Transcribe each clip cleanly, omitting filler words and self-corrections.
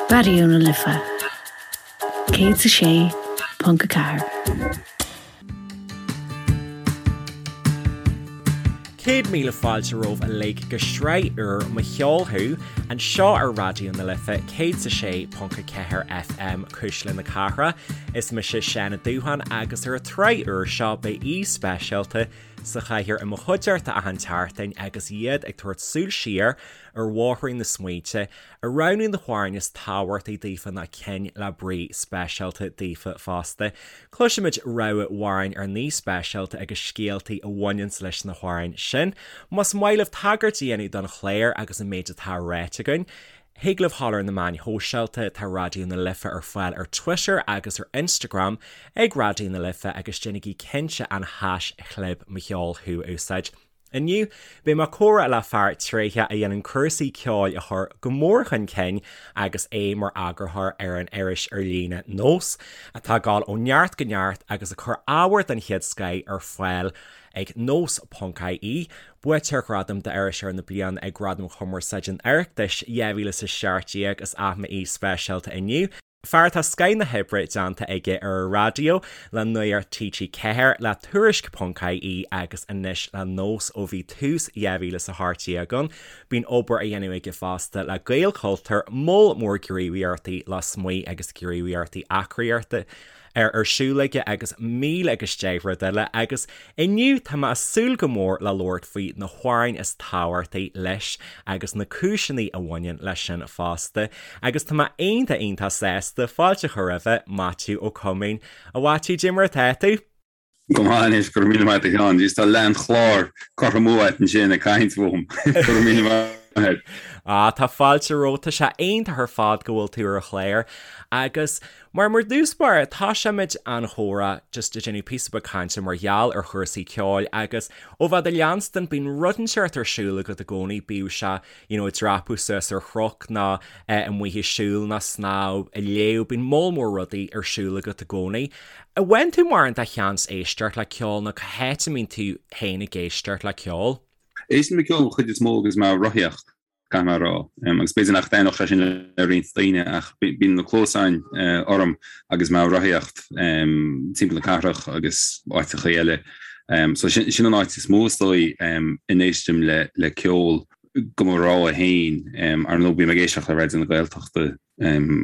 Raidió na Life 106.4. 100,000 fáilte romhaibh uilig go sraith úr Mo Cheol Thú, anseo ar Raidió na Life 106.4 FM, Cuisle na Cathrach. Is mise Seán Ó Dúsháin agus ar an tsraith úr seo beidh aoi speisialta sa chathaoir i mo chuideachta achan tseachtain agus iad ag tabhairt súil siar ar bhóithrín na smaointe, ag roghnú na hamhráin is tábhachtaí daofa nó cinn le brí speisialta daofa fosta. Cloisfimid rogha amhráin ár n-aoi speisialta agus scéaltaí a bhaineanns leis na hamhráin sin. Más maith libh tagairt a dhéanamh don chlár agus an méid atá ráite againn, thig libh dhul ar na meáin shóisialta, tá Raidió na Life ar fáil ar Twitter agus ar Instagram ag Raidió na Life agus déanaigí cinnte an haischlib Mo Cheol Thú a úsáid. Inniu, beidh mé ag comhrá le fear tréitheach a dhéanann cúrsaí ceoil a chur go mór chun cinn agus é mar eagarthóir ar an iris ar líne Nós, atá ag dul ó neart go neart agus ag cur ábhar den chéad scoith ar fáil ag nós.ie. Buaiteoir Ghradam d'Iriseoir na Bliana ag Gradaim Chumarsáide an Oireachtais 2017 is ea m'aoi speisialta inniu. Fear atá scoith na hoibre déanta aige ar an raidió, le Nuacht TG4, le Tuairisc ponc ie agus anois le Nós ó bhí tús 2018 ann. Bíonn obair á dhéanamh aige fosta le Gaelchultúr, moll mór gníomhaíochtaí lasmuigh agus gníomhaíochtaí eagraíochta. ar siúl aige agus 1000 agus 10 rud eile agus inniu tá mé ag súil go mór le labhairt faoi na hamhráin is tábhachtaí leis agus na cúiseanna a bhaineann leis sin fosta agus tá mé iontach iontach sásta fáilte a chur roimhe, Maitiú Ó Coimín. A Mhaitiú, cad é mar atá tú? Go maith anois, go raibh míle maith agat a Sheáin. Jeez, tá leath an chláir curtha amú agat ansin ag caint fúm. Go raibh míle maith agat. Ah, tá fáilte romhat, tá sé iontach ar fad go bhfuil tú ar an chlár agus Mar mar dtús báire, tosóimid an chomhrá just ag déanamh píosa beag cainte mar gheall ar chúrsaí ceoil agus ó bheith do leanstan bíonn rud inteacht ar siúl agat i gcónaí, bíodh sé you know ag dreapadh suas ar chnoc nó amuigh ag siúl nó snámh, ag léamh, bíonn moll mór rudaí ar siúl agat i gcónaí. An bhfaigheann tú mórán de sheans éisteacht le ceol nó cá háit a mbíonn tú féin ag éisteacht le ceol? Éistim le ceol an chuid is mó agus mé ag rothaíocht. caithfidh mé a rá. Agus b'fhéidir nach dtaitneodh sé sin le roinnt daoine ach bíonn na cluasáin orm agus mé ag rothaíocht timpeall na cathrach agus áiteacha eile. So sin an áit is mó is dóigh a n-éistim le ceol do mo rogha féin. Ar ndóigh bím ag éisteacht le Raidió na Gaeltachta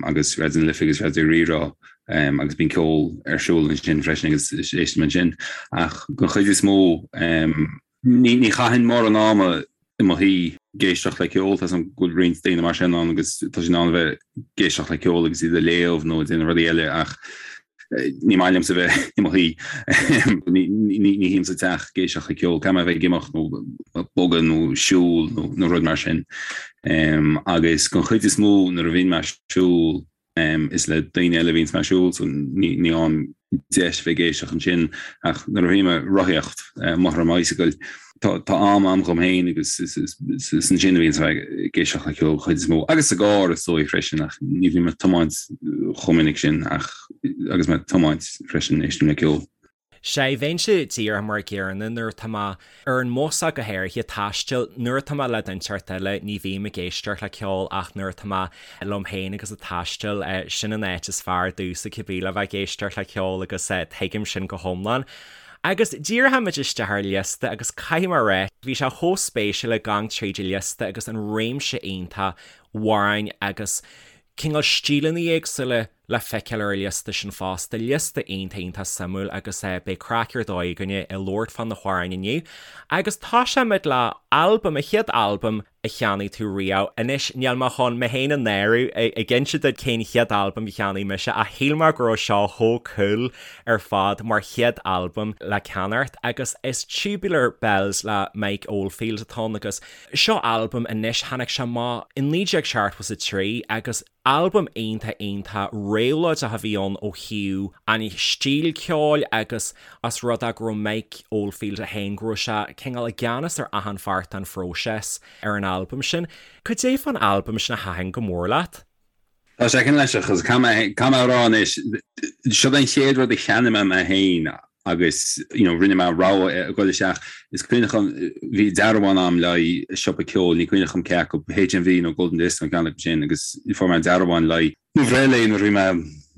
agus Raidió na Life agus Raidió Rí-Rá agus bíonn ceol ar siúl ansin freisin agus éistim ansin. Ach den chuid is mó Ní chaithfinn mórán ama i mo shuí ag éisteacht le ceol, tá 'fhios a'm go bhfuil roinnt daoine mar sin ann agus tá siad in ann a bheith ag éisteacht le ceol agus iad ag léamh nó ag déanamh rudaí eile ach ní maith liomsa bheith i mo shuí. Ní shuím sa teach ag éisteacht le ceol, caithfidh mé a bheith ag imeacht nó ag bogadh nó siúl nó rud mar sin. Agus den chuid is mó nuair a bhíonn mé ag siúl, Is le daoine eile a bhíonns mé ag siúl so ní fhaighim deis bheith ag éisteacht ansin ach nuair a bhím ag rothaíocht amuigh ar an mbicycle tá am a'm dhom féin agus is ansin a bhíonns mé ag éisteacht le ceol chuid is mó. Agus sa gcarr is dóigh freisin ach ní bhím ag tiomáint chomh minic sin ach agus mé ag tiomáint freisin éistim le ceol. Sea, bheinnse díreach mar an gcéanna nuair atá mé ar an mbus ach go háirithe, taisteal, nuair atá mé le duine inteacht eile ní bhím ag éisteacht le ceol ach nuair atá mé liom féin agus ag taisteal, sin an áit is fearr domhsa cibé le bheith ag éisteacht le ceol agus tuigim sin go hiomlán. Agus díreoimid isteach ar liosta agus caithfidh mé a rá, bhí sé chomh spéisiúil ag gabháil tríd an liosta agus an réimse iontach amhráin agus cineál stíleanna éagsúla le feiceáil ar an liosta sin fosta, liosta iontach iontach suimiúil agus beidh craic ar dóigh againne ag labhairt fá na hamhráin inniu. Agus tosóimid le albam, an chéad albam a cheannaigh tú riamh. Anois níl mé chun mé féin a náiriú ag inse duit cén chéad albam a cheannaigh mise ach shíl mé go raibh seo chomh cool ar fad mar chéad albam le ceannacht agus is Tubular Bells le Mike Oldfield atá ann agus seo albam anois, tháinig sé amach i 1973 agus Albam iontach iontach réabhlóideach a bhí ann ó thaobh an stíl ceoil agus as rud é go raibh Mike Oldfield é féin, go raibh sé cineál i gceannas ar achan pháirt den phróiseas ar an albam sin. Cad é fán albam sin a thaitin go mór leat? Tá sé cineál aisteach agus caithfidh mé a rá anois, seo an chéad rud a cheannaigh mé mé féin. Agus you know rinne mé rogha a dhul isteach. Is cuimhneach liom bhí dearbhán a'm le haghaidh siopa ceoil, ní cuimhneach liom cé acu, HMV nó Golden Disc nó ceann acu sin agus fuair mé dearbhán le haghaidh mo bhreithlae nuair a bhí mé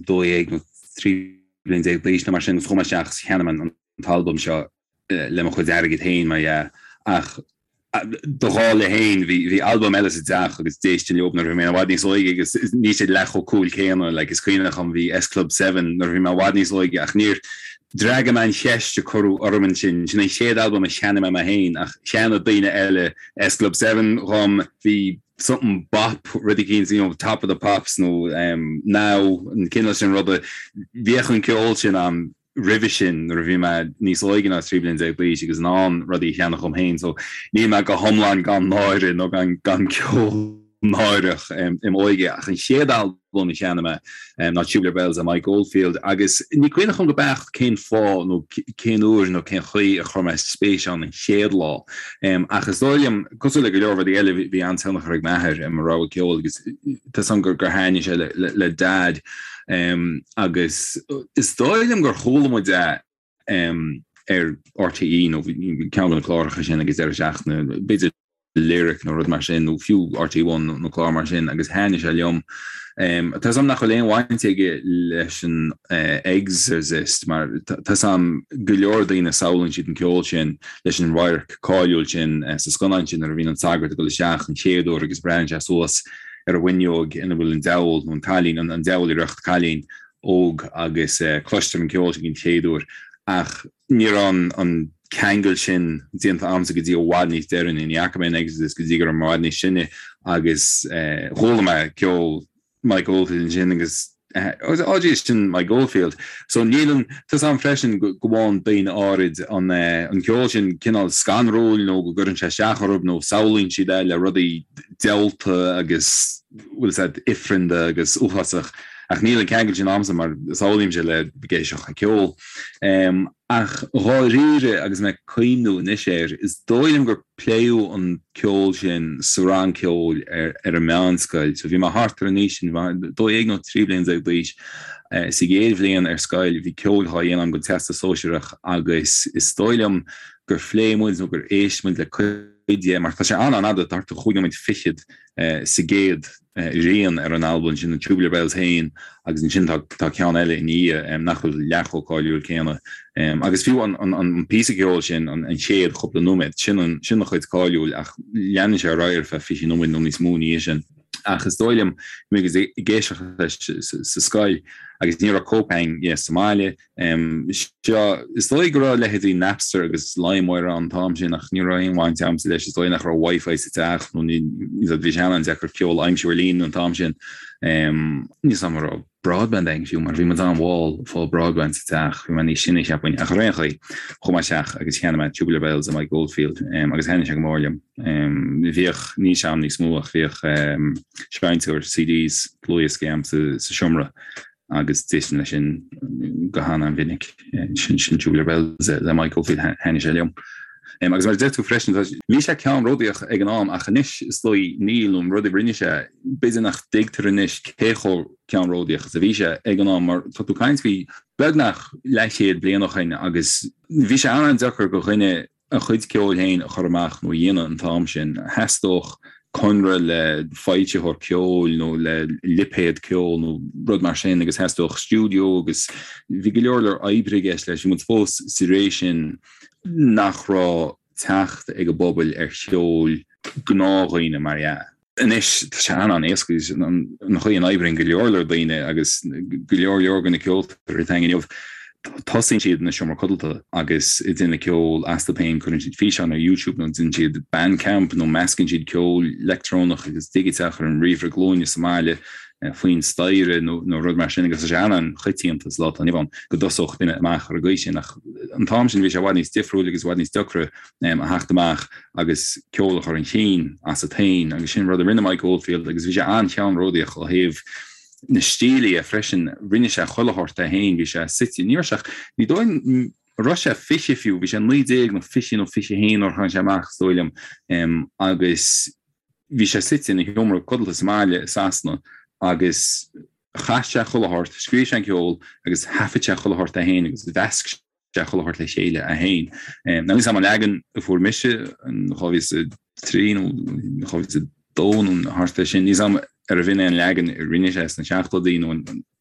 12 nó 13 bliain d'aois nó mar sin agus chuaigh mé isteach agus cheannaigh mé an t-albam seo le mo chuid airgid féin mar dhea ach do dhála féin bhí bhí albam eile sa teach agus d'éistinn leo nuair a bhí mé i bhfad níos óige agus níl siad leath chomh cool céanna like is cuimhneach liom bhí S Club 7 nuair a bhí mé i bhfad níos óige ach níor d'fhreagair mé an cheist a cuireadh orm ansin sin an chéad albam a cheannaigh mé mé féin ach cheannaigh daoine eile S Club 7 dhom bhí something bop rud eicínt you know Top of the Pops nó um, Now an cineál sin ruda bhíodh an ceol sin a'm roimhe sin nuair a bhí mé níos óige ná 13 bliain d'aois agus in ann rudaí a cheannach dhom féin so níl mé go hiomlán gan náire nó gan gan ceol náireach im óige ach an chéad albam a cheannaigh mé ná Tubular Bells le Mike Oldfield agus ní cuimhneach liom go beacht cén fáth nó cén uair nó cén chaoi a chuir mé spéis ann an chéad lá ach is dóigh liom cosúil le go leor rudaí eile bhí an-tionchar ag m'athair ar mo rogha ceoil agus tá 's agam gur gur thaitnigh sé le le le Dad Agus is dóigh liom gur chuala muid é ar RTÉ nó ceann de na cláracha sin ag an deireadh seachtaine, b'fhéidir Lyric nó rud mar sin, nó fiú RTÉ One nó clár mar sin, agus thaitnigh sé liom. Tá 's agam nach bhfuil aon bhaint aige leis an Exorcist mar tá 's agam go leor daoine samhlaíonn siad an ceol sin leis an radharc cáiliúil sin sa scannán sin nuair a bhíonn an sagart ag dul isteach an chéad uair agus breathnaíonn sé suas ar an bhfuinneog ina bhfuil an diabhal, nó an cailín, an diabhal i riocht cailín óg agus cloistear an ceol sin den chéad uair. Ach ní raibh an ceangal sin déanta a'msa go dtí i bhfad níos deireanaí. Ní fhaca mé an Exorcist go dtí go raibh mé i bhfad níos sine agus chuala mé ceol Mike Oldfield ansin agus oh geez, sin Mike Oldfield. So níl an, tá 's a'm freisin go bhfaigheann daoine áirid an an ceol sin cineál scanrúil nó go gcuireann sé isteach orthu nó samhlaíonn siad é le rudaí diabhalta agus bhfuil 's a'd ifreanda agus uafásach ach níl an ceangal sin a'msa mar samhlaímse le ag éisteacht le ceol. Ach dháiríre agus mé ag cuimhniú anois air, is dóigh liom gur pléadh an ceol sin sa rang ceoil ar an meánscoil. So bhí mé thart ar an aois sin, 12 nó 13 bliain d'aois. Sa gcéad bhliain ar scoil bhí ceol á dhéanamh agam don Teastas Sóisearach agus is dóigh liom gur phléigh muid nó gur éist muid le cuid de, mar tá sé an-an-fhada, thart ar chúig nóiméad fichead sa gcéad rian ar an albam sin, an Tubular Bells féin, agus ansin tá tá ceann eile ina dhiaidh nach bhfuil leath chomh cáiliúil céanna. Agus fiú an an an píosa ceoil sin, an an chéad chúpla nóiméad, sin an sin an chuid cáiliúil ach leanann sé ar aghaidh ar feadh 20 nóiméad nó níos mó ina dhiaidh sin. Ach is dóigh liom, bhí mé ag éisteacht leis sa scoil agus ní raibh cóip againn dhe sa mbaile, Seo, is dóigh go raibh leithéidí Napster agus LimeWire ann an t-am sin ach ní raibh aon bhaint agamsa leis. Is dóigh nach raibh Wi-Fi sa teach nó ní, bhí sé an-deacair ceol a aimsiú ar líne an t-am sin. Níl 'fhios a'm an raibh broadband againn fiú mar bhí muid an-mhall ag fáil broadband sa teach. Bhí mé níos sine cheapfainn ach ar aon chaoi, chuaigh mé isteach agus cheannaigh mé Tubular Bells le Mike Oldfield agus thaitnigh sé go mór liom. Bhíodh, níl sé a'm níos mó ach bhíodh seinnteoir CDs, dlúthdhioscaí a'm sa seomra agus d'éistinn leis sin go han-an-mhinic. Sin sin Tubular Bells le Mike Oldfield thaitnigh sé liom. Agus mar a deir tú freisin, bhí sé ceannródaíoch ag an am ach anois is dóigh níl nó an rud a rinne sé, b'fhéidir nach dtuigtear anois cé chomh ceannródaíoch is a bhí sé ag an am mar tá tú ag caint faoi beagnach leathchéad bliain ó shin agus bhí sé an-an-deacair do dhuine a chuid ceoil féin a chur amach nó a dhéanamh an t-am sin. Theastódh conradh le foilsitheoir ceoil nó le lipéad ceoil nó rud mar sin agus theastódh stiúideo agus bhí go leor leor oibre i gceist leis. Bhí muid fós sa ré sin nach raibh teacht ag an bpobal ar cheol gnáthdhaoine mar dhea. Anois, tá sé an-an-éasca agus an chaoi a n-oibríonn go leor leor daoine agus go leor leor de na ceoltóirí atá againn inniu, tosaíonn siad ina seomra codlata agus ag déanamh ceol astu féin, cuireann siad físeán ar YouTube nó déanann siad Bandcamp nó meascann siad ceol leictreonach agus digiteach ar an ríomhaire glúine sa mbaile faoin staighre nó rud mar sin agus tá sé an-an-choitianta sa lá atá inniu ann go dtosódh duine amach ar an gcaoi sin ach an t-am sin bhí sé i bhfad níos difriúil agus i bhfad níos deacra a theacht amach agus ceol a chur chun cinn asat féin agus sin rud a rinne Mike Oldfield agus bhí sé an-cheannródaíoch ó thaobh na stíle dhe freisin. Rinne sé chuile shórt é féin, bhí sé suite, ní raibh sé ach, ní dóigh liom an raibh sé 20 fiú, bhí sé 19 nó 20 nó 21 nuair a tháinig sé amach is dóigh liom agus bhí sé suite ina sheomra codlata sa mbaile i Sasana agus chas sé chuile shórt, scríobh sé an ceol agus thaifead sé chuile shórt é féin agus mheasc. sé chuile shórt le chéile é féin. Now níl a fhios agam an leagan a fuair mise in 2003 nó 2002 nó thart ar sin, níl a fhios agam arbh in é an leagan a rinne sé sna seachtóidí nó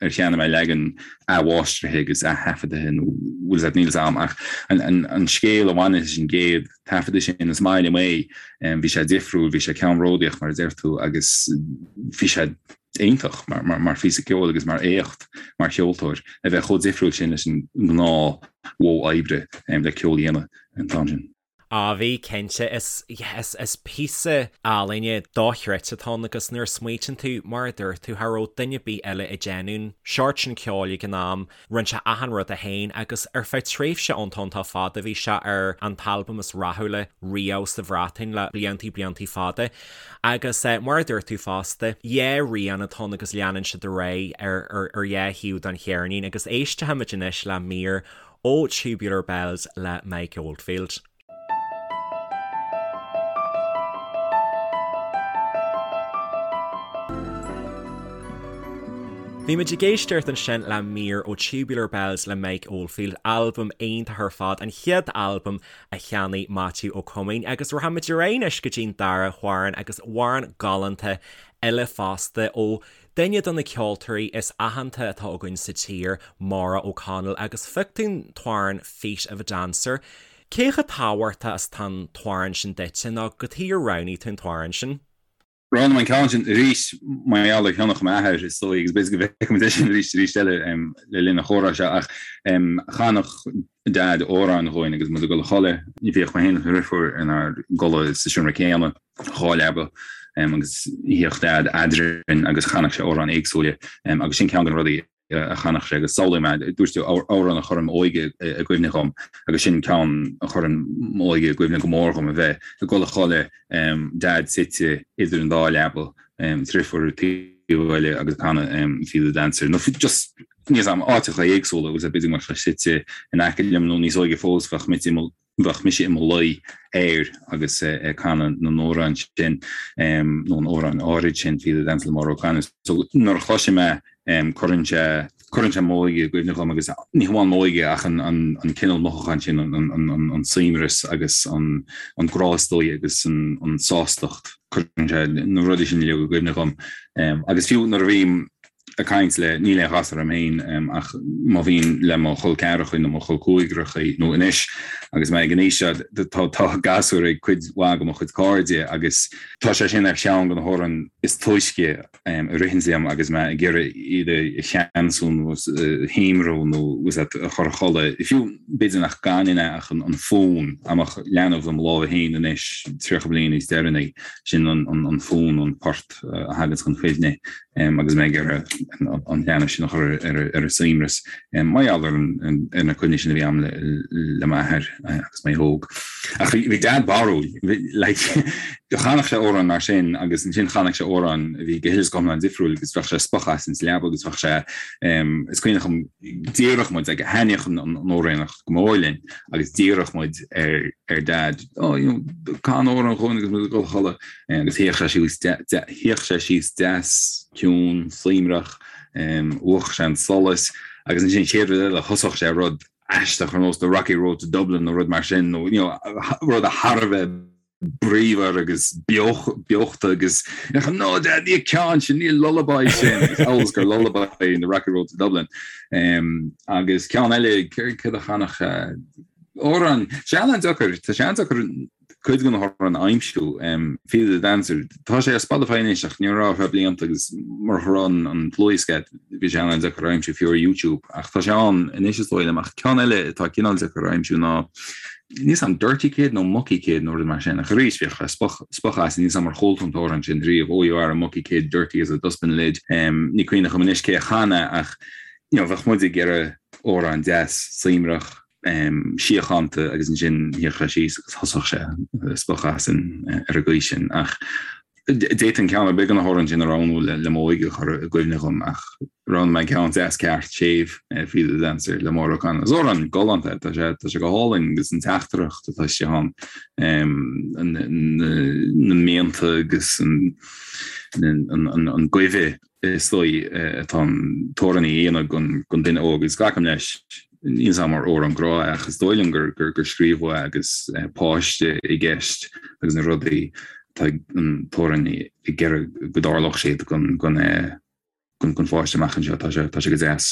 ar cheannaigh mé leagan athmháistrithe agus ath-thaifeadaithe nó bhfuil a fhios agat, níl a fhios agam ach an scéal a bhaineann leis an gcéad taifeadadh sin, is maith liom é, bhí sé difriúil, bhí sé ceannródaíoch mar a deir tú agus bhí sé iontach mar phíosa ceoil agus mar éacht mar cheoltóir a bheith chomh difriúil sin leis an ngnáth mhodh oibre le ceol a dhéanamh an t-am sin. Á bhí, cinnte. Is, yeah, is, is píosa ealaíne dochreidte atá ann agus nuair a smaoitíonn tú, mar a dúirt tú, cha raibh duine ar bith eile ag déanamh an seort sin ceoil ag an am, rinne sé achan rud é féin agus ar feadh tréimhse iontach iontach fada bhí sé ar an t-albam is rathúla riamh sa Bhreatain le bliantaí bliantaí fada. Agus mar a dúirt tú fosta, dhá rian atá ann agus leanann siad ar aghaidh ar ar ar dhá thaobh den cheirnín agus éistfimid anois le mír ó Tubular Bells le Mike Oldfield. Bhí muid ag éisteacht ansin le mír ó Tubular Bells le Mike Oldfield, albam iontach ar fad, an chéad albam a cheannaigh Maitiú Ó Coimín agus rachaimid ar aghaidh anois go dtí'n dara hamhrán agus amhrán galánta eile fosta ó Duine de na ceoltóirí is aitheanta atá againn sa tír, Maura O'Connell, agus phioc tú an t-amhrán Feet of a Dancer. Cé chomh tábhachtach is atá an t-amhrán sin duitse nó cad chuige ar roghnaigh tú an t-amhrán sin? Roghnaigh mé an ceann sin arís mar gheall ar thionchar m'athair, is dóigh, agus b'fhéidir go bhfeicfimid é sin arís arís eile le linn an chomhrá seo, ach chanadh Daid amhráin dhúinn agus muid ag dul a chodladh. Bhíodh mé féin agus mo dheirfiúr inár gcodladh sa seomra céanna. 2 leaba agus shuíodh Daid eadrainn agus chanadh sé amhráin éagsúla agus sin ceann de na rudaí a chanadh sé agus samhlaím é, dúirt tú amhrán a chuireann m'óige i gcuimhne dhom agus sin ceann a chuireann m'óige i gcuimhne go mór dhom, a bheith ag dul a chodladh, Daid suite idir an dá leaba, deirfiúr ar an taobh eile agus ag canadh Feet of a Dancer nó just níl a fhios agam, áiteacha éagsúla agus b'fhéidir go mbeadh sé suite in aice liom nó níos óige fós bheadh muid i mo Bheadh mise i mo luí air agus ag canadh na n-amhrán sin, nó an amhráin áirid sin, Feet of a Dancer le Maura O'Connell. So nuair a chloisim é, cuireann sé, cuireann sé m'óige i gcuimhne dhom agus ní hamháin m'óige ach an, an, an cineál mothúchán sin, an, an, an, an suaimhneas agus an, an grá is dóigh agus an, an sástacht, cuireann sé na rudaí sin uilig i gcuimhne dhom. Agus fiú nuair a bhím ag caint le, níl aon ghasúr agam féin ach má bhím le mo chol ceathracha nó mo chol cúigearacha nó anois agus mé ag an aois seo tá tá gasúir ag cuid mhaith de mo chuid cairde agus tá sé sin ar cheann de na hamhráin is túisce a ritheanns liom agus mé ag iarraidh iad a cheansú nó a shuaimhniú nó a chur a chodladh. Fiú b'fhéidir nach gcanfainn é ach an fonn, dá mbeadh leanbh i mo lámha féin anois 30 bliain níos deireanaí, sin an fonn, an port a thaganns chun cuimhne. agus mé ag iarraidh an leanbh sin a chur ar a suaimhneas, mar gheall ar na cuimhní sin a bhí agam le m'athair agus mé óg. Ach bhí Dad barrúil, like, chanadh sé amhráin mar sin agus ansin chanadh sé amhráin a bhí go huile is go hiomlán difriúil agus bheadh sé ag spochadh asainn sa leaba agus bheadh sé, is cuimhin liom, d'iarrfadh muid, like, thaitníodh an amhránaíocht go mór linn agus d'iarrfadh muid ar Dad, oh, you know, can amhrán dhúinn agus muid ag dul a chodladh. Agus shuíodh sé síos, shuíodh sé síos deas, ciúin, suaimhneach, mhúchadh sé an solas, agus ansin an chéad rud eile thosódh sé rud aisteach ar nós The Rocky Road to Dublin nó rud mar sin, nó you know, rud thar a bheith bríomhar agus beochta agus no Dad, ní an ceann sin, ní an lullaby sin, agus amhail is gur lullaby é The Rocky Road to Dublin. Agus ceann eile, céard a chanadh sé? Amhrán, sé an-deacair, tá sé an-deacair cuid de na hamhráin a aimsiú. Feet of the Dancer, tá sé ar Spotify anois ach ní raibh ar feadh blianta agus murach go raibh an dlúthdhiosca bhí sé an-deacair a aimsiú fiú ar YouTube ach tá sé ann anois is dóigh liom ach ceann eile atá cineál deacair a aimsiú ná níl a fhios agam Dirty Kid nó Mucky Kid nó rud mar sin ach arís bhíodh sé spochadh as níl a fhios agam ar chuala tú an t-amhrán sin riamh Oh you are a mucky kid, dirty as a dustbin lid. Ní cuimhin liom anois cé a chan é ach you know bheadh muid ag iarraidh amhrán deas suaimhneach síochánta agus ansin shuíodh sé síos agus thosódh sé ag spochadh asainn ar an gcaoi sin. Ach d'fhéadfainn ceann ar bith de na hamhráin sin a roghnú le m'óige a chur i gcuimhne dhom ach roghnaigh mé ceann deas ceart séimh, Feet of the Dancer le Maura O'Connell. Is amhrán galánta é, tá sé tá sé go hálainn agus an teachtaireacht atá istigh ann, na mianta agus an goimh is dóigh atá an t-amhránaí a dhéanamh don duine óg agus glacaim leis. Níl 'fhios a'm ar amhrán grá é ach is dóigh liom gur gur scríobhadh é agus páiste i gceist agus na rudaí atá an t-amhránaí ag iarraidh go dtarlódh siad don don don pháiste amach anseo. Tá sé tá sé go deas.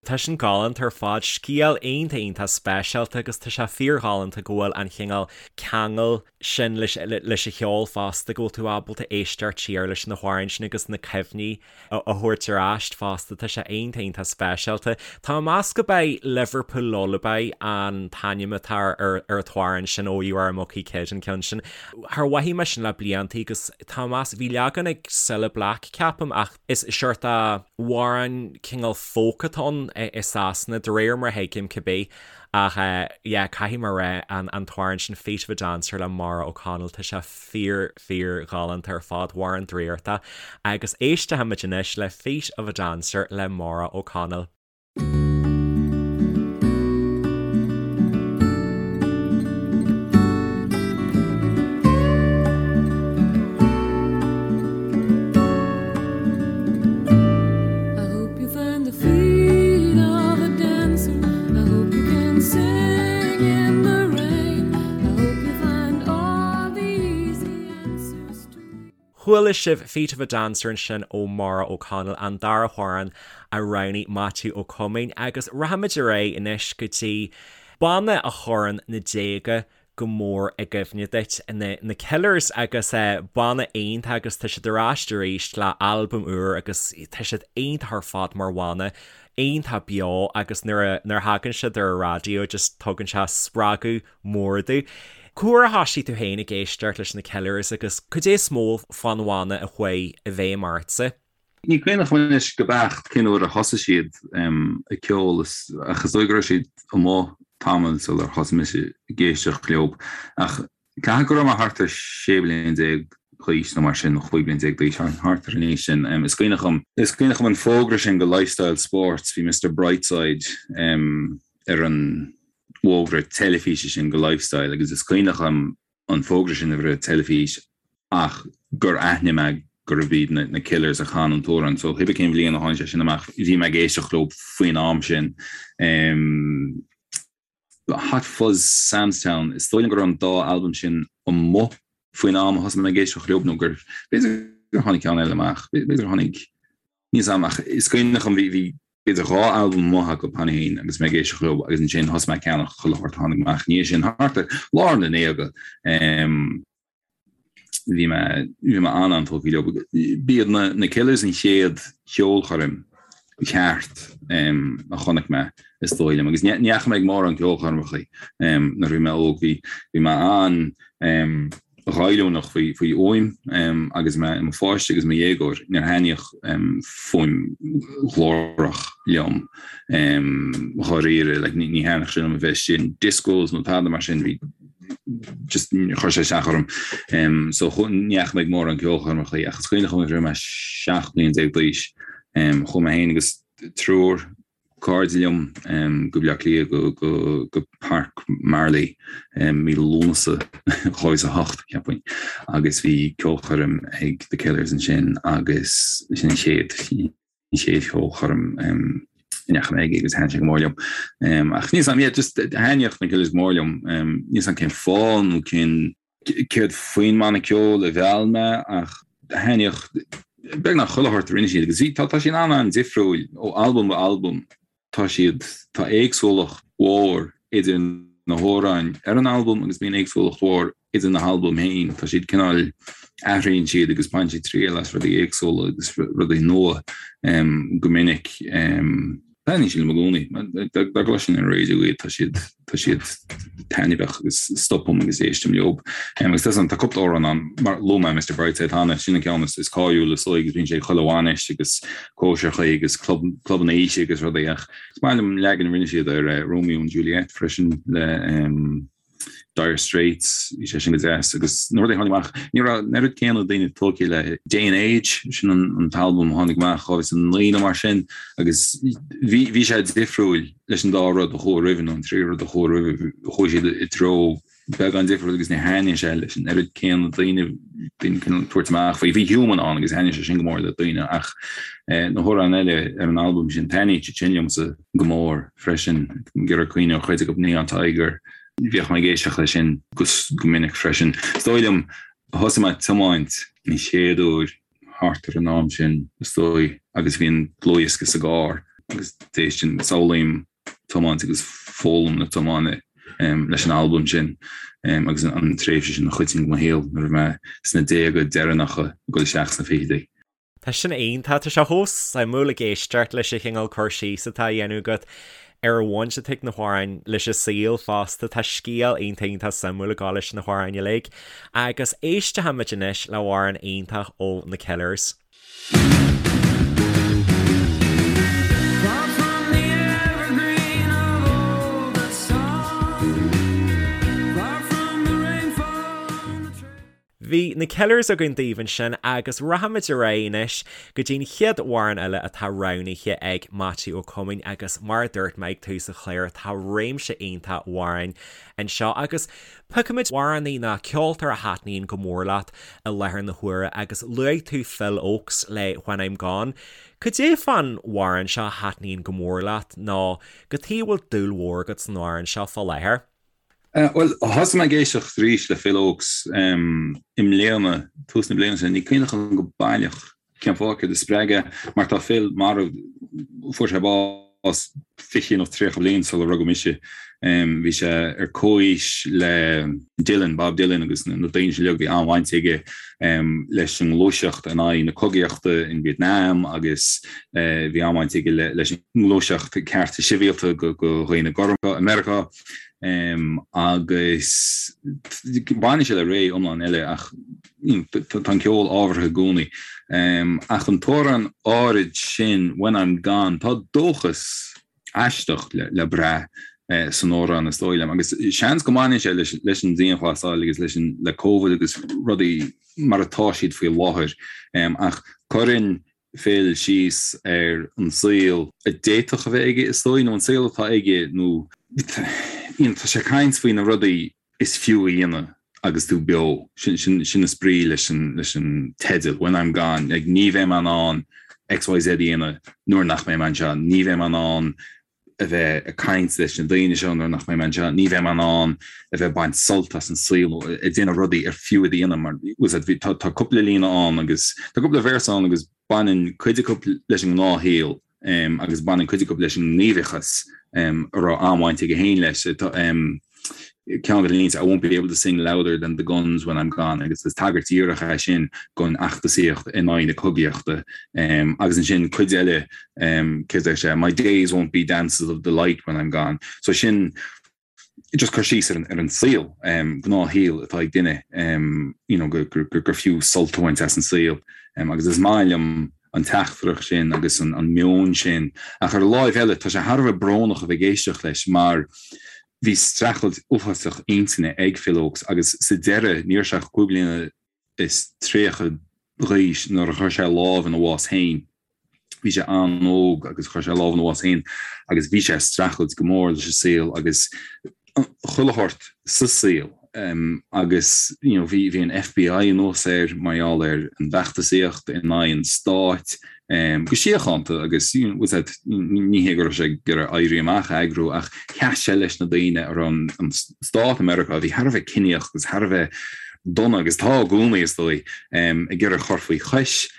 Tá sin galánta ar fad, scéal iontach iontach speisialta agus tá sé fíorghalánta go bhfuil an chineál ceangal sin leis leis an cheol fosta, go bhfuil tú ábalta éisteacht siar leis na hamhráin sin agus na cuimhní a thabhairt ar ais fosta, tá sé iontach iontach speisialta. Tá mé ag meas gurb é Liverpool Lullaby an t-ainm atá ar ar an t-amhrán sin ó You Are a Mucky Kid an ceann sin. Char mhothaigh mé sin le blianta agus tá mé ag meas, bhí leagan ag Cilla Black ceapaim ach Is seort amhrán cineál folk atá ann i Sasana, de réir mar a thuigim cibé. Ach yeah, caithfidh mé a rá, an t-amhrán sin Feet of a Dancer le Maura O'Connell, tá sé fíor, fíor ghalánta ar fad, amhrán draíochta. Agus éistfimid anois le Feet of a Dancer le Maura O'Connell. Chuala sibh Feet of a Dancer ansin ó Maura O'Connell, an dara hamhrán a roghnaigh Maitiú Ó Coimín agus rachaimid ar aghaidh anois go dtí banna a chuireann na déaga go mór i gcuimhne duit, na Killers agus banna iontach agus tá siad ar ais arís le albam úr agus tá siad iontach ar fad mar bhanna, iontach beo agus nuair a thagann siad ar an raidió just tugann sé spreagadh mór domh. Cá huair a thoisigh tú féin ag éisteacht leis na Killers agus cad é is mó fán bhanna a chuaigh i bhfeidhm ortsa? Ní cuimhneach liom anois go beacht cén uair a thosaigh siad ag ceol ach is dóigh go raibh siad amuigh tamall sular thosaigh mise ag éisteacht leo. Ach caithfidh go raibh mé thart ar 16 bliain d'aois nó mar sin, nó 15 bliain d'aois, thart ar an aois sin. Is cuimhneach liom, is cuimhneach liom an fógra sin go Lifestyle Sports, bhí Mister Brightside ar an bhfógra teilifíse sin go Lifestyle agus is cuimhneach liom an fógra sin a bheith ar an teilifís ach gur aithnigh mé gurbh iad na Killers a chan an t-amhrán so cibé cén bhliain a tháinig sé sin amach bhí mé ag éisteacht leo faoin am sin. Hot Fuzz Sam's Town, is dóigh liom go raibh an dá albam sin amuigh faoin am a thosaigh mé ag éisteacht leo nó gur b'fhéidir gur tháinig ceann eile amach, b'fhéidir gur tháinig Níl 'fhios a'm ach is cuimhneach liom bhí b'fhéidir 2 albam amuigh acu cheana féin agus mé ag éisteacht leo agus ansin thosaigh mé ag ceannach chuile shórt a tháinig amach ina dhiaidh sin thart ar lár na ndéaga. Bhí mé bhí mé an-an-tógtha leo. B'iad na na Killers an chéad cheolchoirm cheart a chonaic mé is dóigh liom agus ní dheachaigh mé ag mórán ceolchoirmeacha nuair a bhí mé óg bhí bhí mé an ghoilliúnach faoi fhuaim agus mé i mo pháiste agus i mo dhéagóir. Níor thaitníodh fuaim ghlórach liom dháiríre. Like, ní thaitníodh sé liom a bheith istigh in discos nó tada mar sin, bhí just chuir sé isteach orm. So ní dheachaigh mé ag mórán ceolchoirmeacha ach is cuimhneach liom nuair a bhí mé 17 bliain d'aois, chuaigh mé féin agus triúr cairde liom go Baile Átha Cliath go Páirc Marlay mí Lúnasa 2008, cheapfainn, agus bhí ceolchoirm ag The Killers ansin agus sin an chéad an chéad cheolchoirm a ndeachaigh mé aige agus thaitin sé go mór liom. Ach níl 'fhios a'm, yeah, just thaitníodh na Killers go mór liom. Níl 'fhios a'm cén fáth nó cén céard faoin mbanna ceoil a mheall mé ach thaitníodh beagnach chuile shórt a rinne siad agus bhí, tá, tá siad an-an-difriúil ó albam go albam, tá siad, tá éagsúlacht mhór idir na hamhráin ar an albam agus bíonn éagsúlacht mhór idir na halbaim féin, tá siad cineál, athraíonn siad agus baineann siad triail as rudaí éagsúla agus rudaí nua go minic. Taitníonn siad liom i gcónaí. Dá gcloisfinn ar an raidió iad, tá siad, tá siad taitneamhach agus stopaim agus éistim leo. Agus tá tá cúpla amhrán ann, mar luaigh mé Mr Brightside cheana, sin an ceann is, is cáiliúla is dóigh agus bíonn sé ag chuile bhainis agus cóisireacha agus club, clubanna oíche agus rudaí ach is maith liom an leagan a rinne siad ar Romeo and Juliet freisin le Dire Straits, bhí sé sin go deas agus na rudaí a tháinig amach, ní raibh an oiread céanna daoine tógtha le Day and Age, sin an t-albam a tháinig amach 2009 nó mar sin agus bhí bhí sé difriúil leis an dá rud a chuaigh roimhe nó an trí rud a chuaigh roimhe, chuaigh siad i dtreo beagán difriúil agus ní thaitníonn sé leis an oiread céanna daoine, daoine cineál tabhairt amach faoi. Bhí Human ann agus thaitnigh sé sin go mór le daoine ach na hamhráin eile ar an albam sin, taitníonn siad sin liomsa go mór freisin. Ag iarraidh cuimhneamh ar chuid acu Neon Tiger, bhíodh mé ag éisteacht leis sin go minic freisin. Is dóigh liom, thosaigh mé ag tiomáint an chéad uair thart ar an am sin, is dóigh, agus bhí an dlúthdhiosca sa gcarr agus d'éistinn, samhlaím tiomáint agus foghlaim na tiomána leis an albam sin agus an tréimhse sin an chuid sin de mo shaol nuair a bhí mé sna déaga deireanacha ag dul isteach sna fichidí. Tá sin iontach, tá sé chomh suimiúil ag éisteacht leis an chineál cur síos atá á dhéanamh agat ar an bhaint atá ag na hamhráin leis an saol fosta. Tá scéal iontach iontach suimiúil ag gabháil leis na hamhráin uilig. Agus éistfimid anois le hamhrán iontach ó na Killers. Bhí na Killers againn daoibh ansin agus rachaimid ar aghaidh anois go dtí an chéad amhrán eile atá roghnaithe ag Maitiú Ó Coimín agus mar a dúirt mé ag tús an chláir tá réimse iontach amhráin anseo agus piocfaimid amhránaí nó ceoltóir a thaitníonn go mór leat i láthair na huaire agus luaigh tú Phil Ochs le When I'm Gone. Cad é fán amhrán seo a thaitníonn go mór leat nó cad chuige a bhfuil dúil mhór agat san amhrán seo fá láthair? Bhuel, thosaigh mé ag éisteacht arís le Phil Ochs i mbliana, tús na bliana seo. Ní cuimhin liom go baileach cén fáth, céard a spreag é, mar tá Phil marbh, fuair sé bás 20 nó 30 bliain sular rugadh mise. Bhí sé ar comhaois le Dylan, Bob Dylan agus na daoine sin uilig, bhí an-bhaint aige leis an ngluaiseacht in aghaidh na cogaíochta in Vietnam agus bhí an-bhaint aige leis an ngluaiseacht cearta sibhialta do dhaoine gorma i Meiriceá. Agus baineann sé le ré iomlán eile ach tá an ceol ábhartha i gcónaí. Ach an t-amhrán áirid sin, When I'm Gone, tá dóchas aisteach le brath san amhrán is dóigh liom. Agus seans go mbaineann sé leis an dianghlasáil agus leis an le Covid agus rudaí mar atá siad faoi láthair. Ach cuireann Phil síos ar an saol a d'fhéadfadh a bheith aige, is dóigh, nó an saol atá aige, nó tá sé ag caint faoi na rudaí is fiú a dhéanamh agus tú beo. Sin is brí leis an teideal, When I'm Gone. Like, ní bheidh mé in ann XYZ a dhéanamh nuair nach mbeidh mé anseo, ní bheidh mé in ann a bheith ag caint leis na daoine seo nuair nach mbeidh mé anseo, ní bheidh mé in ann a bheith ag baint sult as an saol nó ag déanamh rudaí ar fiú iad a dhéanamh mar tá tá cúpla líne ann agus tá cúpla véarsa ann agus baineann cuid acu leis an ngnáthshaol agus baineann cuid acu leis an ngníomhachas a raibh an-bhaint aige féin leis. Ceann de na línte, I won't be able to sing louder than the guns when I'm gone agus is tagairt dhíreach é sin don fheachtasaíocht in aghaidh na cogaíochta. Agus ansin cuid eile, céard a deir sé, my days won't be dances of delight when I'm gone. So sin just cur síos ar an saol, gnáthshaol atá ag duine, you know, gur fiú sult a bhaint as an saol. Agus is maith liom an teachtaireacht sin agus an meon sin. Ach ar an láimh eile, tá sé thar a bheith brónach a bheith ag éisteacht leis mar bhí streachailt uafásach intinne ag Phil Ochs agus sa deireadh ní raibh sé ach 35 bliana d'aois nuair a chuir sé lámh ina bhás féin. Bhí sé an-óg agus chuir sé lámh ina bhás féin agus bhí sé ag streachailt go mór leis an saol agus chuile shórt sa saol agus you know bhí bhí an FBI anuas air mar gheall ar an bhfeachtasaíocht in aghaidh an stáit go síochánta agus you know that ní hé go raibh sé ag iarraidh éirí amach a eagrú ach sheas sé leis na daoine a raibh an stát i Meiriceá a bhí thar a bheith ciníoch agus thar a bheith dona agus tá i gcónaí is dóigh ag iarraidh chur faoi chois.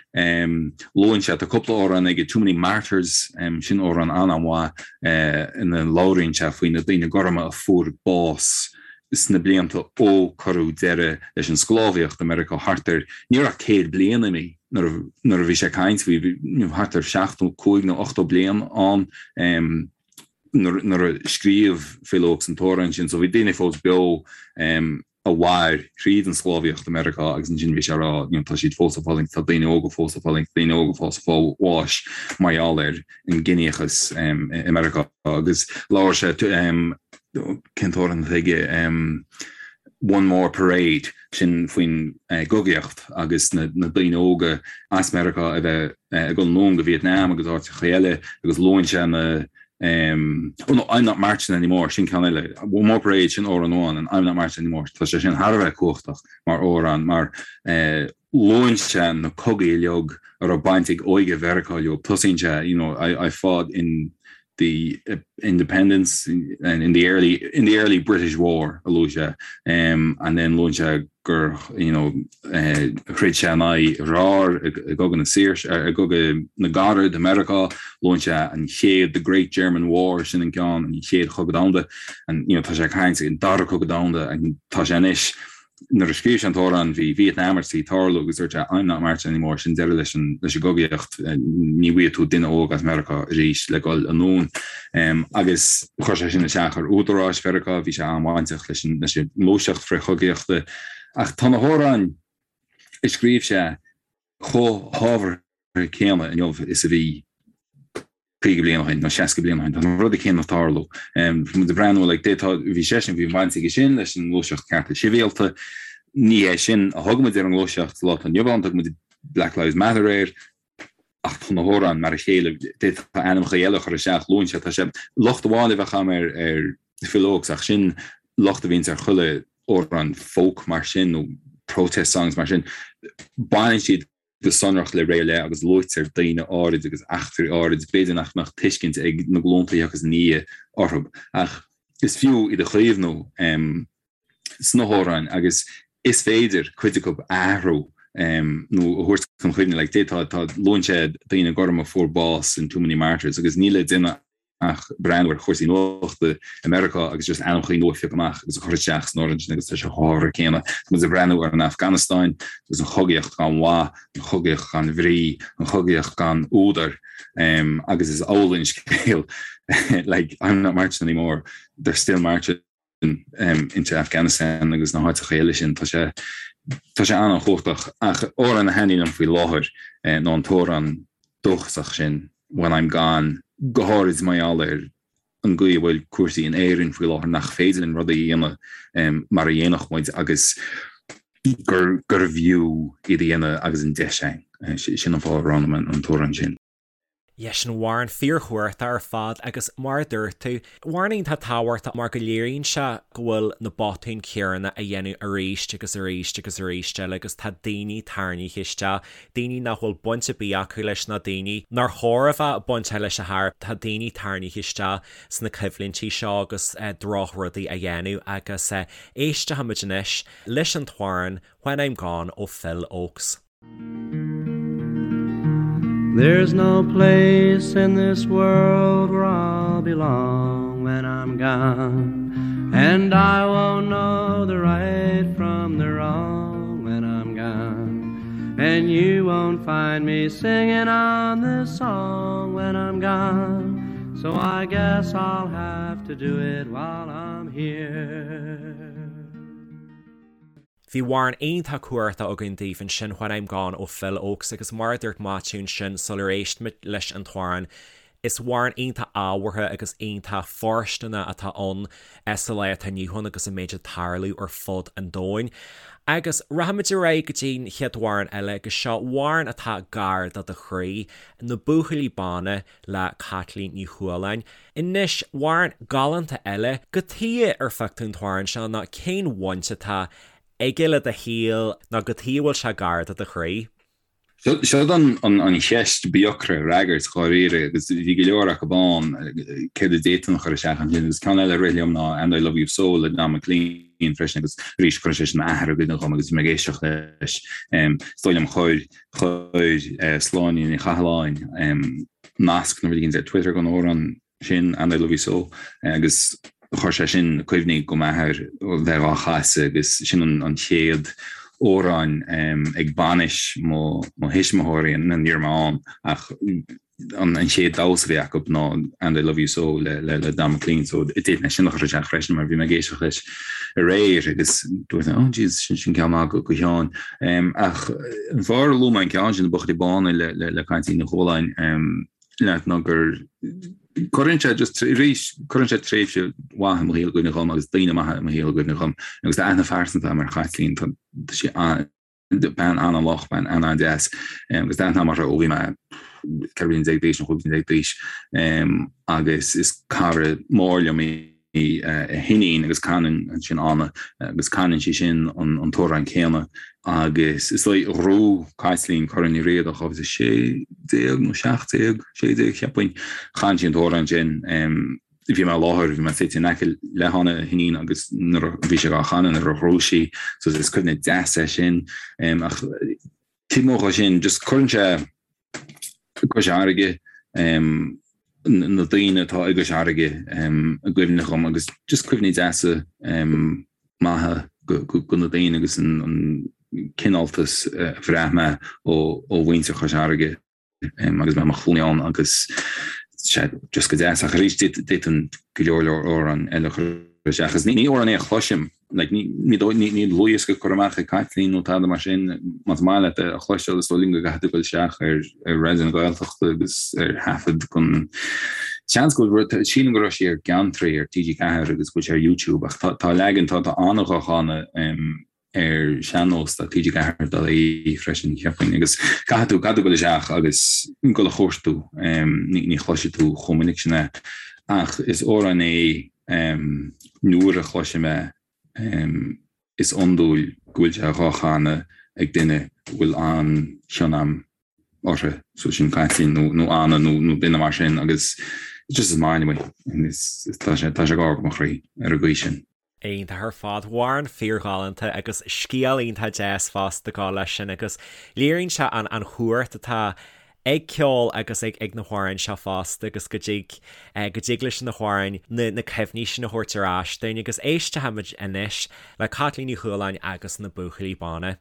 Luann sé tá cúpla amhrán aige Too Many Martyrs sin amhrán an-mhaith ina labhraíonn sé faoi na daoine gorma a fuair bás sna blianta ó cuireadh deireadh leis an sclábhaíocht i Meiriceá thart ar, ní raibh ach 100 bliain imithe nuair a bhí sé ag caint faoi, bhí thart ar 75 nó 80 bliain ann nuair a scríobh Phil Ochs an t-amhrán sin so bhí daoine fós beo a mhair thríd an sclábhaíocht i Meiriceá agus ansin bhí sé ag rá you know tá siad fós ag fulaingt, tá daoine óga fós ag fulaingt, daoine óga fós ag fáil bháis mar gheall ar an gciníochas i Meiriceá agus labhair sé cén t-amhrán atá aige One More Parade sin faoin gcogaíocht agus na daoine óga as Meiriceá a bheith ag dul anonn go Vietnam agus áiteacha eile agus luann sé na. Oh no, I'm Not Marching Anymore, sin ceann eile. One More Parade, sin amhrán amháin, and I'm Not Marching Anymore, tá sé sin thar a bheith cumhachtach mar amhrán, mar luann sé na cogaí uilig a raibh baint ag óige Mheiriceá leo. Tosaíonn sé, you know, I fought in the independence and in the early in the early British War a luaigh sé and then luann sé gur you know throid sé in aghaidh a dhearthár i gCogadh na Saoirse i gCogadh na gCarad i Meiriceá luann sé an chéad the Great German War sin an ceann an chéad chogadh domhanda and you know tá sé ag caint an dara cogadh domhanda and tá sé anois Nuair a scríobh sé an t-amhrán bhí Vietnam ar tí tarlú agus dúirt sé I'm not marching anymore, sin deireadh leis an leis an gcogaíocht, ní bhfaighidh tú duine óg as Meiriceá arís le dhul anonn. Agus chuir sé sin isteach ar údaráis Mheiriceá, bhí sé an-bhainteach leis an leis an ngluaiseacht frith-chogaíochta. Ach tá na hamhráin a scríobh sé chomh hábhartha céanna inniu is a bhí 50 bliain ó shin nó 60 bliain ó shin. Tá na rudaí céanna ag tarlú. Tá muid ag breathnú like d'fhéadfá, bhí seisean, bhí baint aige sin leis an ngluaiseacht cearta sibhialta. Ní hé sin a thug muid ar an ngluaiseacht sa lá atá inniu ann, thug muid Black Lives Matter air, ach tá na hamhráin mar a chéile, d'fhéadfá ainmneacha eile a chur isteach, luann sé, tá sé, locht amháin a bheadh agam ar ar Phil Ochs ach sin locht a bhíonns ar chuile amhrán folk mar sin nó protest songs mar sin, baineann siad go sonrach le ré ar leith agus luaitear daoine áirid agus eachtraí áirid, b'fhéidir nach mbeadh tuiscint ag na glúnta a thiocfas ina ndiaidh orthu, ach is fiú iad a chaomhnú sna hamhráin agus is féidir cuid acu a athrú nó a thabhairt chun cuimhne. Like, d'fhéadfá, tá, luann sé daoine gorma a fuair bás in Too Many Martyrs agus níl le déanamh ach breathnú ar chúrsaí nuachta i Meiriceá agus just ainmneacha nua a phiocadh amach agus a chur isteach san amhrán sin agus tá sé chomh hábhartha céanna. Tá muid ag breathnú ar an Afganastáin agus an chogaíocht gan mhaith, an chogaíocht gan bhrí, an chogaíocht gan údar agus is amhlaidh an scéal like I'm not marching anymore, they're still marching into Afghanistan agus na háiteacha eile sin. Tá sé tá sé an-chumhachtach ach amhrán a thaitníonn liom faoi láthair ná an t-amhrán dóchasach sin When I'm Gone, go háirid mar gheall ar an gcaoi a bhfuil cúrsaí in Éirinn faoi láthair nach féidir linn rudaí a dhéanamh mar a dhéanfadh muid agus gur gurbh fhiú iad a dhéanamh agus an deis againn. Sin an fáth a roghnaigh mé an t-amhrán sin. Yeah, sin amhrán fíorchumhachtach ar fad agus mar a dúirt tú, amhrán iontach tábhachtach mar go léiríonn sé go bhfuil na botúin céanna á dhéanamh arís agus arís agus arís eile agus tá daoine tarraingthe isteach, daoine nach bhfuil baint ar bith acu leis nó daoine nár chóir a bheith bainteach leis a chor, tá daoine tarraingthe isteach sna coimhlintí seo agus drochrudaí á dhéanamh agus éistfimid anois leis an t-amhrán When I'm Gone ó Phil Ochs. There's no place in this world where I'll belong when I'm gone And I won't know the right from the wrong when I'm gone And you won't find me singing on this song when I'm gone So I guess I'll have to do it while I'm here. Bhí amhrán iontach cumhachtach againn daoibh ansin When I'm Gone ó Phil Ochs agus mar a dúirt Maitiú ansin sular éist muid leis an t-amhrán, is amhrán iontach ábhartha agus iontach fóirsteanach atá ann sa lá atá inniu ann agus an méid ag tarlú ar fud an domhain. Agus rachaimid ar aghaidh go dtí'n chéad amhrán eile agus seo amhrán atá gar do do chroí, Na Buachaillí Bána le Caitlín Ní Chualáin. Anois, amhrán galánta eile, cad chuige ar phioc tú an t-amhrán seo nó cén bhaint atá aige le do shaol nó cad chuige a bhfuil sé gar do do chroí? Seo an cheist ba dheacra a fhreagairt dháiríre agus bhí go leor acu ann, céard a d'fhéadfainn a chur isteach ansin agus ceann eile a rith liom ná And I Love You So le Don McLean freisin agus arís cuireann sé sin m'athair i gcuimhne dhom agus bhí mé ag éisteacht leis. Is dóigh liom chuir chuir Sláine Ní Chathalláin nasc nó rud éigin ar Twitter don amhrán sin, And I Love You So, agus chuir sé sin cuimhní go m'athair bheith á chasadh agus sin an chéad amhrán ag bainis mo thuismitheoirí, ní raibh mé ann ach an chéad damhsa a bhí acu ná And I Love You So le Don McLean so d'fhéadfainn é sin a chur isteach freisin mar bhí mé ag éisteacht leis aréir agus dúirt mé oh jeez sin sin ceann maith go Sheáin. Ach an fáth ar luaigh mé an ceann sin Na Buachaillí Bána le le Caitlín Ní Chualáin leat ná gur cuireann sé just arís cuireann sé tréimhse mhaith i mo shaol i gcuimhne dhom agus daoine maithe i mo shaol i gcuimhne dhom agus tá aithne phearsanta agam ar Chaitlín tá sí bean an-lách, bean an-deas agus tá aithne agam uirthi ó bhí mé. 14 bliana d'aois nó 15 bliana d'aois agus is cara mór liom í a hiníon agus canann ansin Anna agus canann sí sin an t-amhrán céanna agus is dóigh ghnóthaigh Caitlín Corn Uí Riada 2016 nó 17, 16 cheapfainn, chan sí an t-amhrán sin. Bhí mé i láthair, bhí mé suite in aice le hAnna a hiníon agus nuair a bhí sé á chanadh nuair a ghnóthaigh sí so is cuimhne deas é sin. Ach taobh amuigh dhe sin just cuireann sé Cois Fharraige, na daoine atá i gCois Fharraige i gcuimhne dhom agus just cuimhní deasa maithe go na daoine agus an cineáltas a bhraith mé ó mhuintir Chois Fharraige agus mé i mo chónaí ann agus sé just go deas ach arís d'fhéadfainn go leor leor amhrán eile a chur isteach agus ní amhrán é a chloisim like ní ní ní ní dlúthdhiosca curtha amach ag Caitlín nó tada mar sin más maith leat é a chloisteáil is dóigh liom go gcaithfidh tú dul isteach ar ar Raidió na Gaeltachta agus ar thaifead gon seans go bhfuil sílim go raibh sí ar Geantraí ar TG4 agus go bhfuil sé ar YouTube ach tá tá leagan tá tá Anna dhá chanadh ar sean-nós tá TG4 dot ie freisin cheapfainn agus caithfidh tú caithfidh tú dul isteach agus dul a chuartú ní ní chloisfidh tú chomh minic sin é ach is amhrán é nuair a chloisim é is iondúil go bhfuil sé dhá chanadh ag duine a bhfuil an-chion a'm orthu so sin Caitlín nó nó Anna nó nó duine mar sin agus just is maith liom é is tá sé tá sé gar do mo chroí ar an gcaoi sin. Iontach ar fad. Amhrán fíorghalánta agus scéal iontach deas fosta ag gabháil leis sin agus léiríonn sé an an chumhacht atá ag ceol agus ag ag na hamhráin seo fosta agus go dtig go dtig leis na hamhráin na na cuimhní sin a thabhairt ar ais dúinn agus éistfimid anois le Caitlín Ní Chualáin agus na Buachaillí Bána.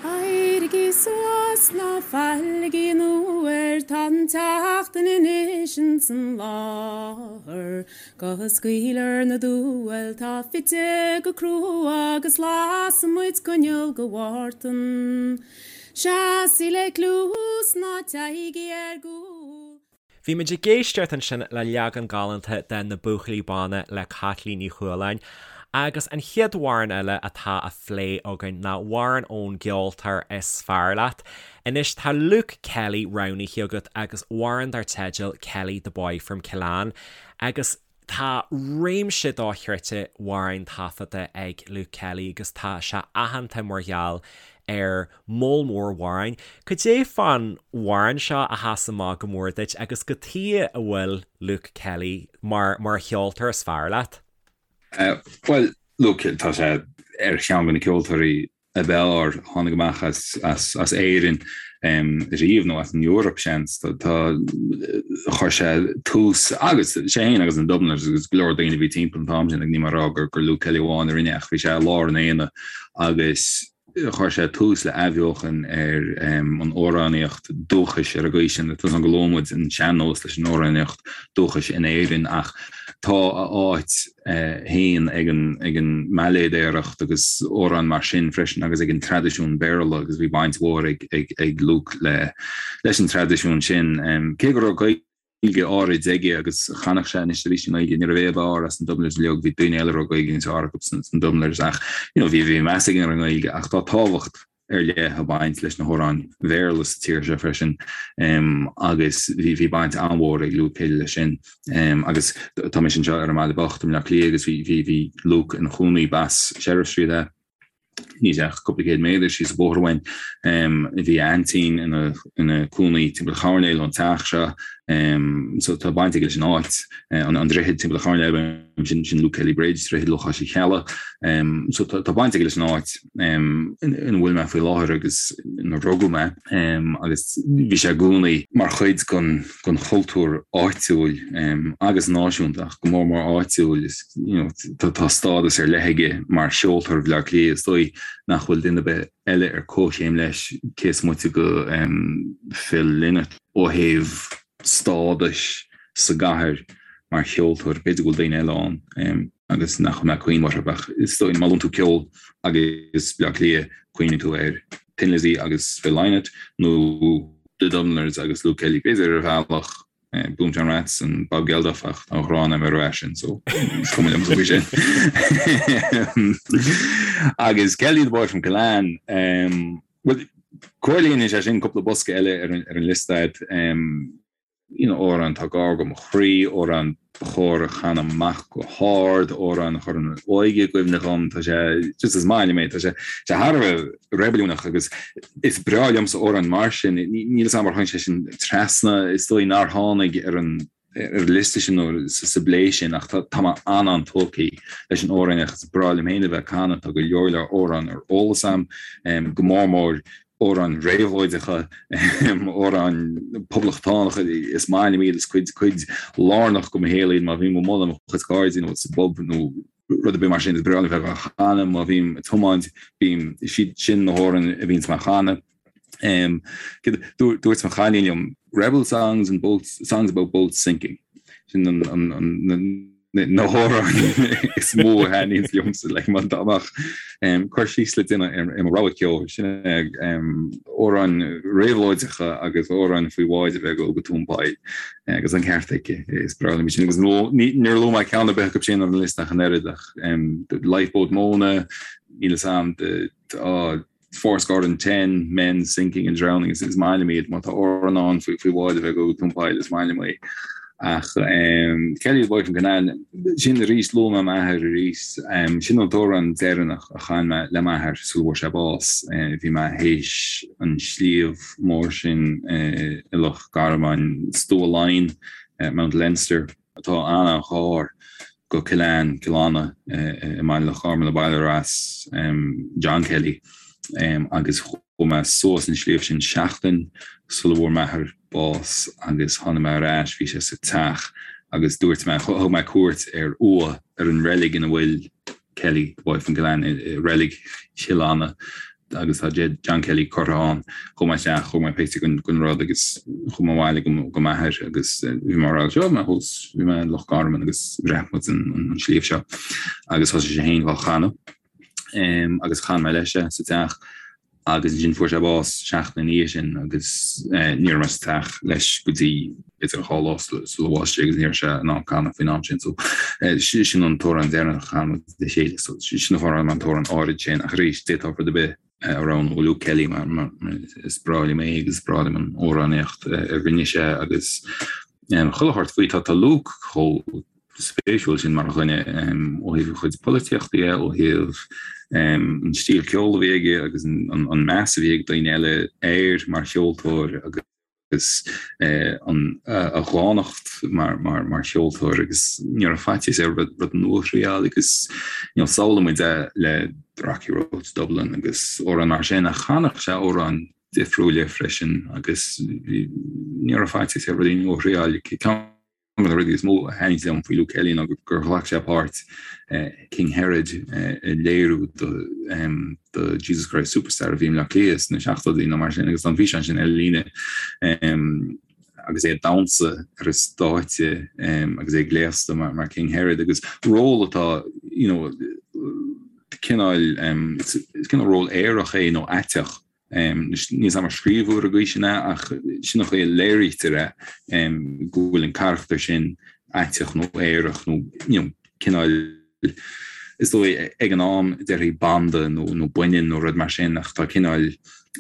Éirigí suas, ná failigí an uair, tá an tseachtain anois ins an láthair. Go scaoilfear na diabhail tá fite go crua agus lasfaidh muid coinneal go Mhártan. Seasaigí le cluas ná téigí ar gcúl. Bhí muid ag éisteacht ansin le leagan galánta de Na Buachaillí Bána le Caitlín Ní Chualáin agus an chéad amhrán eile atá á phlé againn ná amhrán ón gceoltóir is fearr leat. Anois tá Luke Kelly roghnaithe agat agus amhrán dar teideal Kelly the Boy from Killanne agus Tá réimse dochreidte amhrán taifeadta ag Luke Kelly agus tá sé aitheanta mar gheall ar moll mór amhrán. Cad é fán amhrán seo a sheas amach go mór duit agus cad chuige a bhfuil Luke Kelly mar mar cheoltóir is fearr leat? Bhuel, Luke, tá sé ar cheann de na ceoltóirí ab fhearr a tháinig amach as Éirinn riamh, nó as an Eoraip, seans. Tá, chuir sé tús, agus sé féin agus na Dubliners agus go leor daoine a bhí timpeall an t-am sin, níl mé ag rá gur Luke Kelly amháin a rinne ach bhí sé i lár an aonaigh agus chuir sé tús le athbheochan ar an amhránaíocht dúchais ar an gcaoi sin. Tá a fhios agam go luann muid an sean-nós leis an amhránaíocht dúchais in Éirinn ach tá a áit féin ag an mbailéadóireacht agus amhráin mar sin freisin agus ag an traidisiún Béarla agus bhí baint mhór ag Luke leis an traidisiún sin. Cé go raibh Gaeilge áirid aige agus chanadh sé anois arís i nGaeilge, ní raibh é ab fhearr as na Dubliners uilig, bhí daoine eile a raibh Gaeilge níos fearr acu sna Dubliners ach you know bhí meas aige ar an nGaeilge ach tá tábhacht ar leith ag baint leis na hamhráin Bhéarla sa tír seo freisin agus bhí baint an-mhór ag Luke Kelly leis sin agus tá mise anseo ar an mBaile Bocht i mBleá Cliath agus bhí Luke ina chónaí b'as Sheriff Street é níl ach cúpla céad méadar síos an bóthar uainn. Bhí a aintín ina cónaí timpeall an choirnéil ón teach seo so tá baint aige leis an áit, an droichead timpeall an choirnéil sin sin Luke Kelly Bridge, droichead Lúcháis Uí Cheallaigh. So tá baint aige leis an áit. ina bhfuil mé faoi láthair agus ina rugadh mé agus bhí sé i gcónaí mar chuid den chultúr áitiúil agus náisiúnta ach go mór mór áitiúil. Tá stádas ar leith aige mar cheoltóir Bhaile Átha Cliath, is dóigh nach bhfuil duine ar bith eile ar comhchéim leis cé is moite de Phil Lynott ó thaobh stádais sa gcathair mar cheoltóir. B'fhéidir go bhfuil daoine eile ann. agus nach bhfuil mé ag cuimhneamh orthu ach is dóigh má luann tú ceol agus Bleá Cliath cuimhníonn tú ar Thin Lizzy agus Phil Lynott nó The Dubliners agus Luke Kelly b'fhéidir ar bhealach Boomtown Rats and Bob Geldof ach tá an ghráin agam ar an bhfear sin so is cuma liom faoi sin. Agus Kelly the Boy from Killanne, bhuel. Comhlíonann sé sin cúpla bosca eile ar an liosta a'd. You know, amhrán atá gar do mo chroí, amhrán ba chóir a chanadh amach go hard, amhrán a chuireann an óige i gcuimhne dhom, tá sé, just is maith liom é, tá sé, sé thar a bheith reibiliúnach agus is breá liomsa amhráin mar sin, níl 'fhios a'm ar tháinig sé sin trasna, is dóigh nár tháinig ar an ar an liosta sin nó sa bplé sin ach tá mé an-an-tógtha leis an amhrán is breá liom féin a bheith ag canadh, tá go leor leor amhrán ar eolas a'm, go mór mór amhráin réabhlóideacha, amhráin poblachtánacha, is maith liom iad, is cuid cuid lárnach de mo shaol iad má bhím amuigh le mo chuid cairde nó sa bpub nó rud ar bith mar sin, is breá liom bheith á chanadh má bhím ag tiomáint, bím, is iad sin na hamhráin a bhíonns mé a chanadh. Dúirt mo chailín liom, Rebel songs and boats, songs about boats sinking. Sin an, an, an, na hamhráin is mó a thaitníonns liomsa like má dá mbeadh cur síos le déanamh ar mo rogha ceoil sin é amhráin réabhlóideacha agus amhráin faoi bháid a bheith ag dul go tóin poill agus an ceart aici is breá liom sin agus níor luaigh mé ceann ar bith acu sin ar an liosta ach an oiread ach the Lifeboat Mona níl 'fhios a'm the Fourscore and ten men sinking and drowning is maith liom iad má tá amhrán ann faoi faoi bhád a bheith ag dul go tóin poill is maith liom é. Ach Kelly the Boy from Kinnane sin arís luaigh mé m'athair arís sin an t-amhrán deireanach a chan mé le m'athair sula bhfuair sé bás. Bhí mé théis an sliabh mór sin i Loch Garman, Stua Laighean, Mount Leinster. atá an-an-ghar go Cill Ann, Cill Anna i mBaile Loch Garman, an baile ar as John Kelly agus chuaigh mé suas an sliabh sin seachtain sula bhfuair m'athair bás agus tháinig mé ar ais, bhí sé sa teach agus dúirt mé, thug mé cuairt ar uaigh ar an reilig ina bhfuil Kelly, the boy from Killanne, i reilig Chill Anna agus tá John Kelly curtha ann. Chuaigh mé isteach, thóg mé pictiúr den rud agus chuaigh mé abhaile go m'athair agus bhí mé ag rá seo mé thuas, bhí mé i Loch Garman agus bhreac muid an sliabh seo agus thosaigh sé féin á chanadh agus chan mé leis é sa teach. agus ansin fuair sé bás seachtain ina dhiaidh sin agus ní raibh mé sa teach leis go dtí b'fhéidir 2 lá sula bhásaigh sé agus ní raibh sé in ann canadh faoin am sin so sin an t-amhrán deireanach a chan muid le chéile so sin an fáth ar roghnaigh mé an t-amhrán áirid sin ach arís d'fhéadfá rud ar bith a roghnú ó Luke Kelly mar is breá liom é agus is breá liom an amhránaíocht a rinne sé agus chuile shórt faoi tá Luke chomh spéisiúil sin mar dhuine ó thaobh a chuid polaitíochta de, ó thaobh an stíl ceoil a bhí aige agus an meas a bhí ag daoine eile air mar cheoltóir agus a dhánacht mar cheoltóir agus ní raibh faitíos air rud nua a thriáil agus you know samhlaíonn muid é le The Rocky Road to Dublin agus amhráin mar sin ach chanadh sé amhráin difriúla freisin agus ní raibh faitíos air rudaí nua a thriáil. Ceann de na rudaí is mó a thaitníonn liom faoi Luke Kelly ná gur ghlac sé páirt King Herod i léiriú de Jesus Christ Superstar a bhí i mBleá Cliath sna seachtóidí nó mar sin agus tá an físeán sin ar líne agus é ag damhsa ar an stáitse agus é gléasta mar King Herod agus ról atá you know cineál is cineál ról aerach é nó aiteach. Níl 'fhios a'm ar scríobhadh ar an gcaoi sin é ach sin an chaoi a léirítear é, go bhfuil an carachtar sin aiteach nó aerach nó you know cineál, is dóigh ag an am déarfaí banda nó nó baineann nó rud mar sin ach tá cineál,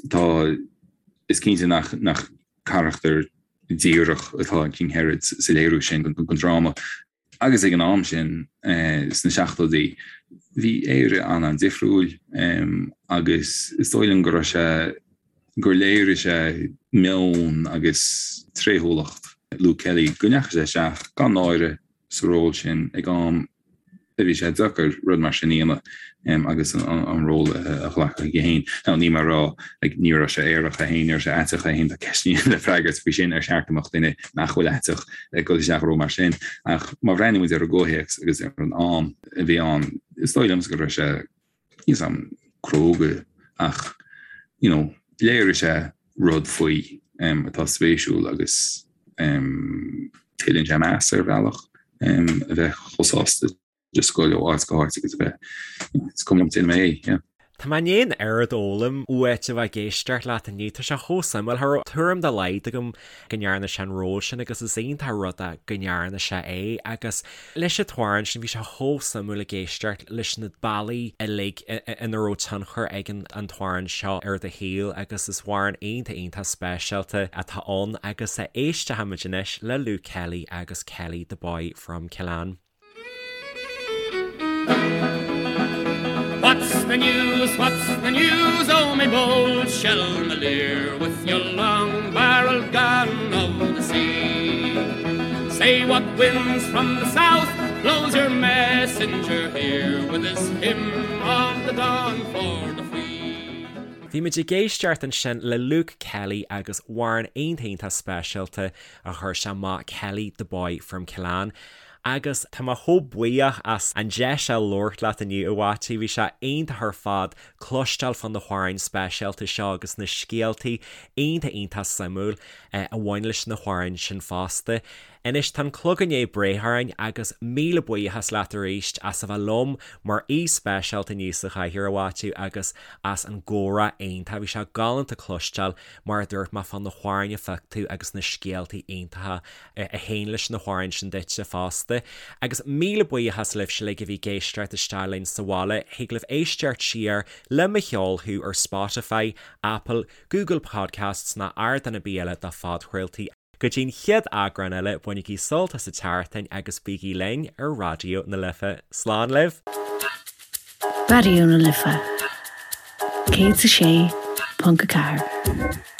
tá, is cinnte nach nach carachtar díreach atá in King Herod sa léiriú sin den dráma. Agus ag an am sin, sna seachtóidí, bhí Éire an-an-difriúil agus is dóigh liom go raibh sé, gur léirigh sé meon agus tréithiúlacht Luke Kelly, go ndeachaigh sé isteach gan náire sa ról sin ag am a bhí sé deacair rud mar sin a dhéanamh agus an ról a ghlacadh chuige féin. Now níl mé ag rá, like, ní raibh sé aerach é féin, ní raibh sé aiteach é féin, tá ceisteanna le freagairt faoi sin, ar cheart go mbeadh duine nach bhfuil aiteach ag dul isteach i ról mar sin. Ach má bhreathnaíonn muid ar an gcomhthéacs agus ar an am a bhí ann, is dóigh liomsa go raibh sé, níl 'fhios a'm, cróga ach, you know, léirigh sé rud faoi atá spéisiúil agus tuilleann sé meas ar bhealach a bheith chomh sásta just goil ó áit go háit agus a bheith, is cuma liom, déanfaidh mé é, yeah. Tá mé i ndiaidh an oiread a fhoghlaim uait a bheith ag éisteacht leat inniu. Tá sé chomh suimiúil. Cha raibh tuairim dá laghad agam go ndearna sé an ról sin agus is iontach an rud é go ndearna sé é agus leis an t-amhrán sin bhí sé chomh suimiúil ag éisteacht leis na bealaí uilig ina raibh tionchar ag an t-amhrán seo ar do shaol agus is amhrán iontach iontach speisialta atá ann agus éistfimid anois le Luke Kelly agus Kelly the Boy from Killanne. What's the news, what's the news, oh my bold Shelmalier, with your long-barreled gun of the sea? Say what winds from the south blows your messenger here with his hymn of the dawn for the free? Bhí muid ag éisteacht ansin le Luke Kelly agus amhrán iontach iontach speisialta a chuir sé amach, Kelly the Boy from Killanne. Agus tá mé chomh buíoch as an deis a labhairt leat inniu, a Mhaitiú. Bhí sé iontach ar fad cloisteáil fá na hamhráin speisialta seo agus na scéaltaí iontach iontach suimiúil a bhain leis na hamhráin sin fosta. Anois tá an clog i ndiaidh breith orainn agus míle buíochas leat arís as a bheith liom mar aoi speisialta inniu sa chathaoir, a Mhaitiú, agus as an gcomhrá iontach. Bhí sé galánta cloisteáil, mar a dúirt mé, fá na hamhráin a phioc tú agus na scéaltaí iontacha a théann leis na hamhráin sin duitse fosta. Agus míle buíochas libhse uilig a bhí ag éisteacht isteach linn sa bhaile. Thig libh éisteacht siar le Mo Cheol Thú ar Spotify, Apple, Google Podcasts ná ardán ar bith eile do phodchraoltaí. Go dtí'n chéad eagrán eile, bainigí sult as an tseachtain agus bígí linn ar Raidió na Life. Slán libh! Raidió na Life 106.4.